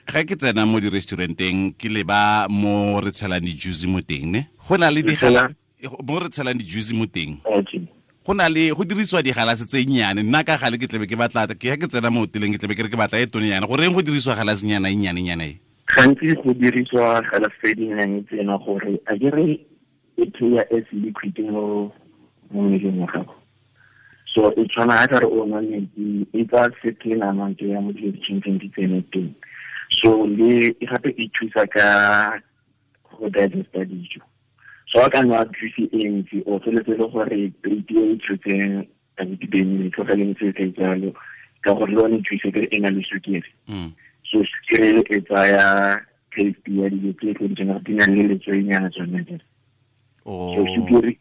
Ga ke tsena mo di-restauranteng, ke leba mo re tshelang di-juice mo teng, ne go na le digala mo re tshelang di-juice mo teng, go na le go dirisiwa digalase tse nnyane. Nna ka gale ke tlebe ke batla ke ke tsena mo hoteleng, ke tlebe ke re ke batla e tone yana. Goreng go dirisiwa galasenyana e nnyane-nyana e? Gantsi go dirisiwa galase tse dinnyane tsena gore a ke re e playa as liquid mo mmeleng wa gago. So e tshwana ga kare o nwa metsi, e tsaya certain amount ya mo dilo di tshwanetseng di tsene teng. So le e gape e thusa ka go digesta dijo. So a ka nwa juice e ntsi, o feletse le gore plate e tshotseng a ditibeng e tlogeleng se se jalo, ka gore le one juice e e na le sukiri. So sukiri e tsaya taste ya dijo tse tlo di di nang le letswainyana tsone jalo. So sukiri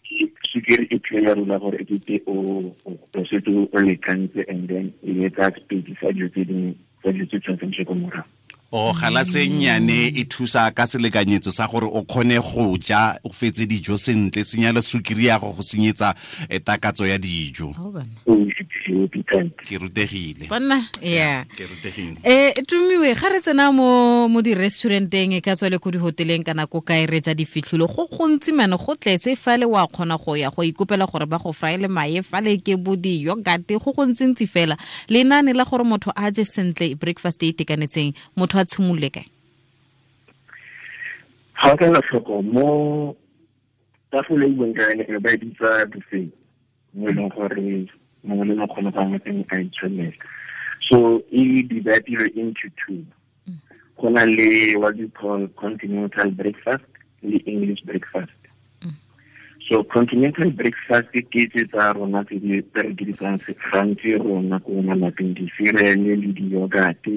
e playa role gore e kete o setse o lekantse, and then e etsa space sa dijo tse dingwe, tsa dijo tse tshwanetseng di ko morago. O galase nnyane e thusa ka selekanyetso sa gore o kgone go ja o fetse dijo sentle, senya le sukiri ya go go senyetsa takatso ya dijo. Ke rutegile. Banna, yeah. Ke rutegile. Tumiwe, ga re tsena mo di-restauranteng, e ka tswa le ko dihoteleng kana ko kae, re ja difitlholo go gontsi mane, go tletse fale, wa kgona go ya go ikopela gore ba go fraele mae fale, ke bo di-yogurt, go gontsintsi fela. Lenaane la gore motho a je sentle breakfast e itekanetseng, motho a tshimolole kae? Ga o ka ela tlhoko mo tafole e buang ka yone, e ba e bitsa buffet, mo e leng gore mongwe le mongwe kgone go mo teng a itshwanela. So e divided into two. Go na le what you call continental breakfast le English breakfast. So continental breakfast ke tse tsa rona tse di tse re dirisang gantsi rona ko malapeng, di-cereal le di-yogurt.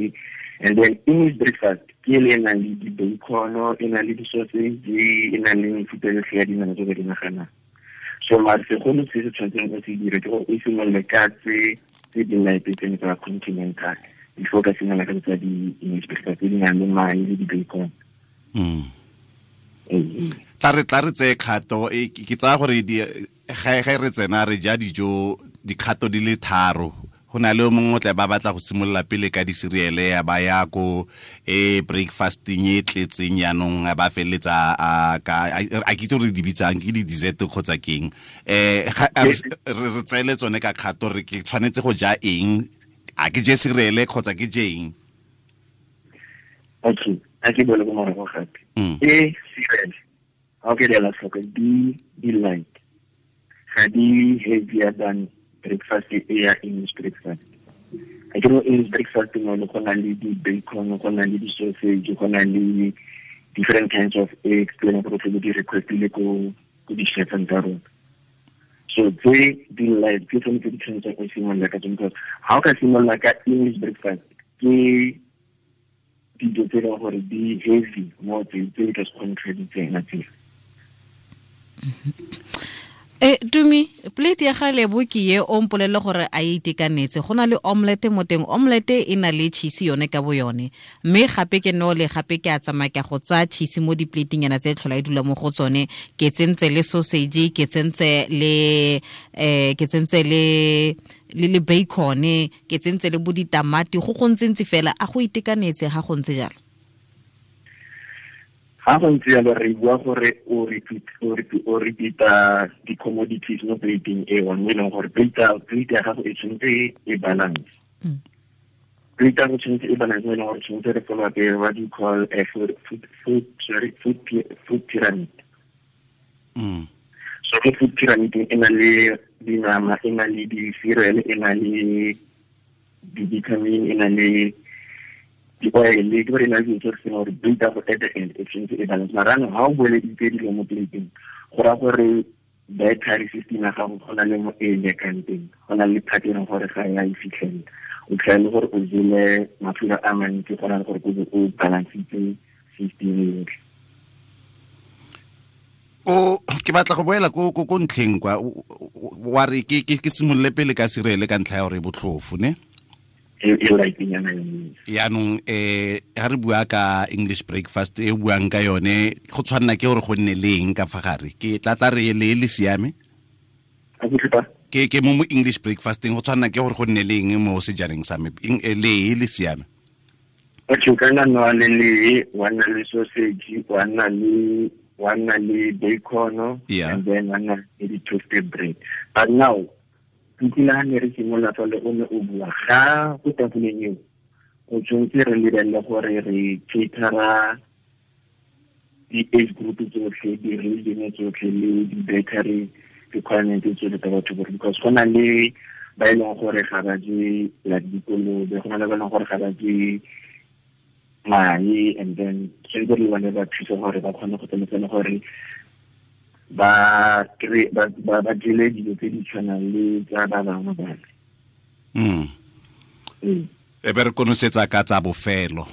And then English breakfast ke le e nang le di-bacon, e nang le di-sausage, e nang le mefuta yotlhe ya dinama tse ba di naganang. So mare segolo se se tshwanetseng o se dire ke gore o simolole ka tse di light tsene tsa continental before ka simolola ka tsa di-English breakfast tse di nang le mae le di-bacon. Tla re tseye kgato ke tsaya gore ga re tsena re ja dijo dikgato di le tharo. Go na le o mongwe o tla ba batla go simolola pele ka di-cereal, ya ba ya ko e breakfasting e tletseng, yaanong a ba feleletsa a ke itse gore di bitsang ke di-dessert kgotsa keng. Re tseele tsone ka kgato, re ke tshwanetse go ja eng? A ke je cereal kgotsa ke je eng? Okay, a ke bole ko morago gape. E cereal, ga o ke di ela tlhoko, di light, ga di heavier than breakfast e ya English breakfast. A ke mo English breakfast mo le go na le di-bacon, go na le di-sausage, go na le different kinds of eggs tse e leng gore tlebe di requestile ko di-chefeng tsa rona. So tse di light ke tsone tse di tshwanetseng o simolola ka tsone, because ga o ka simolola ka English breakfast, ke dijo tse e leng gore di heavy mo tse di ka se kgone tlhe di tsena tsela. Tumi, plate ya ga Lebo ke ye, o mpolelle gore a e itekanetse. Go na le omelette mo teng, omelette e na le cheese yone ka bo yone, mme gape ke no le gape ke a tsamaya ke go tsaya cheese mo di-plateng yana tse tlhola e dula mo go tsone, ke tsentse le sausage, ke tsentse le ke tsentse le bacon, ke tsentse le bo ditamati, go ntse fela. A go itekanetse ga go ntse jalo? Ga go ntse jalo, re bua gore o repeata di-commodities mo plateng e one, mo e leng gore plate ya gago e tshwanetse e balance. Plate ya gago tshwanetse e balance mo e leng gore tshwanetse re follow up what you call a food, sorry, food pyramid. So mo food pyramid e na le dinama, e na le di-cereal, e na le di-vitamin, e na le di-oil, ke gore e na le dilo tse re seng gore plate ya go at the end e tshwanetse e balance. Mara anong ga o boeleditse dilo mo plateng, go raya gore dietary system ya gago go na le mo e lekang teng, go na le part e leng gore ga ya e fitlhelela, o tlhela le gore o jele mafura a mantsi go na le gore o balancitse system yotlhe. O ke batla go boela ko ntlheng kwa wa re ke simolole pele ka cereal ka ntlha ya gore e botlhofo, ne? E lightnyana yone. Yaanong ga re bua ka English breakfast e buang ka yone, go tshwanela ke gore go nne le eng ka fa gare? Ke tla re le siame. A ke tlhopa? Ke mo English breakfasteng, go tshwanela ke gore go nne le eng mo sejaneng sa me? Le siame. Okay, o ka nna nwa le lee, wa nna le sausage, wa nna le bacon, and then wa nna le di-toasted bread. But now, ke ha ne re simolola fa le o ne o bua ga go tafoleng eo, o tshwanetse re lebelele gore re catera di-age group tsotlhe, di-religion tsotlhe le di-dietary requirement tsotlhe tsa batho botlhe, because go na le ba e leng gore ga ba je like dikolobe, go na le ba e leng gore ga ba je mae, and then tshwanetse re bone ba thusa gore ba kgone go tsamaisana gore ba jele dilo tse di tshwanang le tsa ba bangwe bale. E be re konosetsa ka tsa bofelo.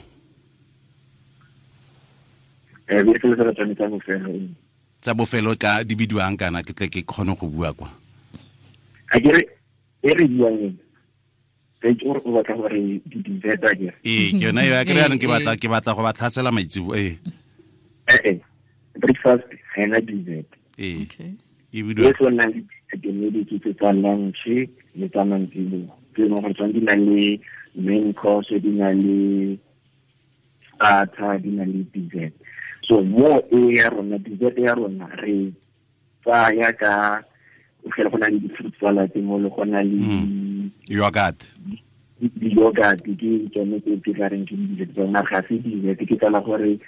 E be re konosetsa tsa bofelo. Tsa bofelo ka di bidiwang kana ke tle ke kgone go bua kwa. A ke re e re buang ke gore o batla gore di dessert a ke. Ee, ke yona eo, ke re yanong ke batla go ba tlhasela maitsebo ee. Breakfast ga ena dessert. Ee. Okay. E bidiwa. E tshwana le di tsa lunch le tsa mantsiboa. Ke leng gore tsone di na le main course, di na le starter, di na le dessert. So mo e ya rona, dessert ya rona re tsaya ka o fela go na le di-fruit salad mo le go na le yogurt. Di-yogurt ke tsone tse ke tla reng ke di-dessert tsona, ga se dessert, ke tsala gore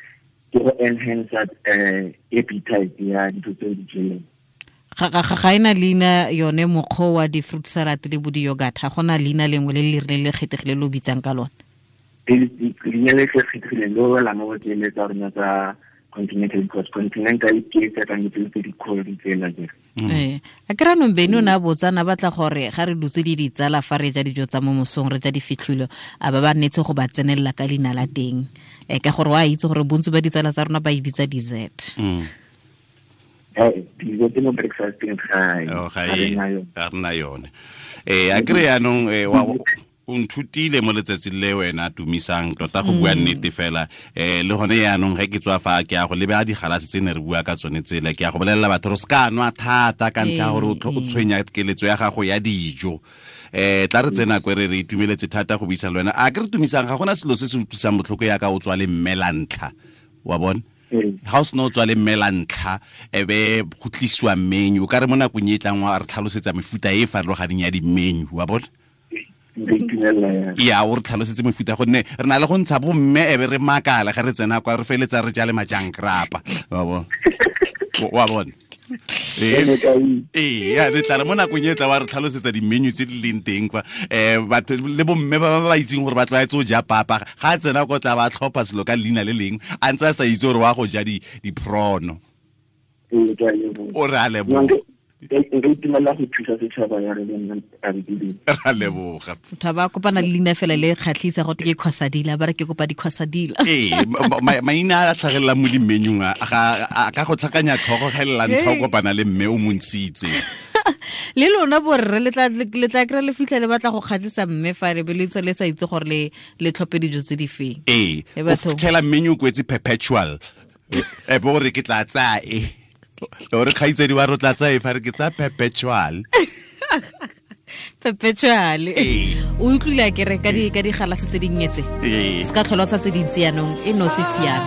ke go enhance appetite ya dilo tse di jeleng. Ga ena leina yone mokgwa wa di-fruit salad le bo di-yogurt, ga gona leina lengwe le le rileng le kgethegile le o bitsang ka lone? Leina le kgethegileng le wela mo go tsele tsa rona tsa continental, because continental ke tse kang tse di cold tsela je. A ke ranong Beno o ne a botsana batla gore ga re dutse le ditsala fa re ja dijo tsa mo mosong, re ja difitlhilo, a ba ba nnetse go ba tsenelela ka leina la teng, ka gore wa itse gore bontsi ba ditsala tsa rona ba e bitsa dessert. Dessert mo breakfasteng ga ga rena yone. A kry yanong o nthutile mo letsatsing le wena Tumisang tota go bua nnete fela. Le gone yaanong ge ke tswa fa ke ya go lebe a digalase tse ne re bua ka tsone tsela, ke ya go bolelela batho re se ka nwa thata ka ntlha gore o tshwenya keletso ya gago ya dijo. Tla re tsena kwe re itumeletse thata go buisa le wena. A ke re Tumisang, ga gona selo se se utlwisang botlhoko yaka o tswa le mme la ntlha, wa bona? Ga o sena o tswa le mme la ntlha e be go tlisiwa menu, o ka re mo nakong e tlang wa re tlhalosetsa mefuta e e farologaneng ya di-menu, wa bona? Ya o re tlhalosetse mefuta, gonne re na le go ntsha bomme e be re makala ga re tsena kwa re feletsa re ja le majankrapa, wa bona? Ee, ya re tla re mo nakong e tla wa re tlhalosetsa di-menu tse di leng teng kwa. Batho le bomme ba ba itseng gore ba tlwaetse go ja papa, ga a tsena ko tla ba tlhopha selo ka leina le leng a ntse a sa itse gore wa go ja di-prawn. O re a leboga. Nka itumela go thusa setšhaba ya re le nna a re Ra leboga. Motho ba kopana le leina fela le kgatlhisa go te ke khosadila, ba re ke kopa dikhosadila. Ee, maina a tlhagelelang mo di-menu-ng a ka go tlhakanya tlhogo ga e le la ntlha o kopana le mme o montshitse. Le lona borre le tla kry-a le fitlha le batla go kgatlhisa mme fa le be le ntse le sa itse gore le tlhophe dijo tse di feng. Ee, o fitlhela menu o kwetse perpetual, e be gore ke tla tsaya e. Ore kgaitsedi wa re tla tsaya e fa re ke tsaya perpetual. Perpetual. O utlwile a kere ka digalase tse dinnye tse. Se ka tlhola sa tse dintsi yanong e no se siame.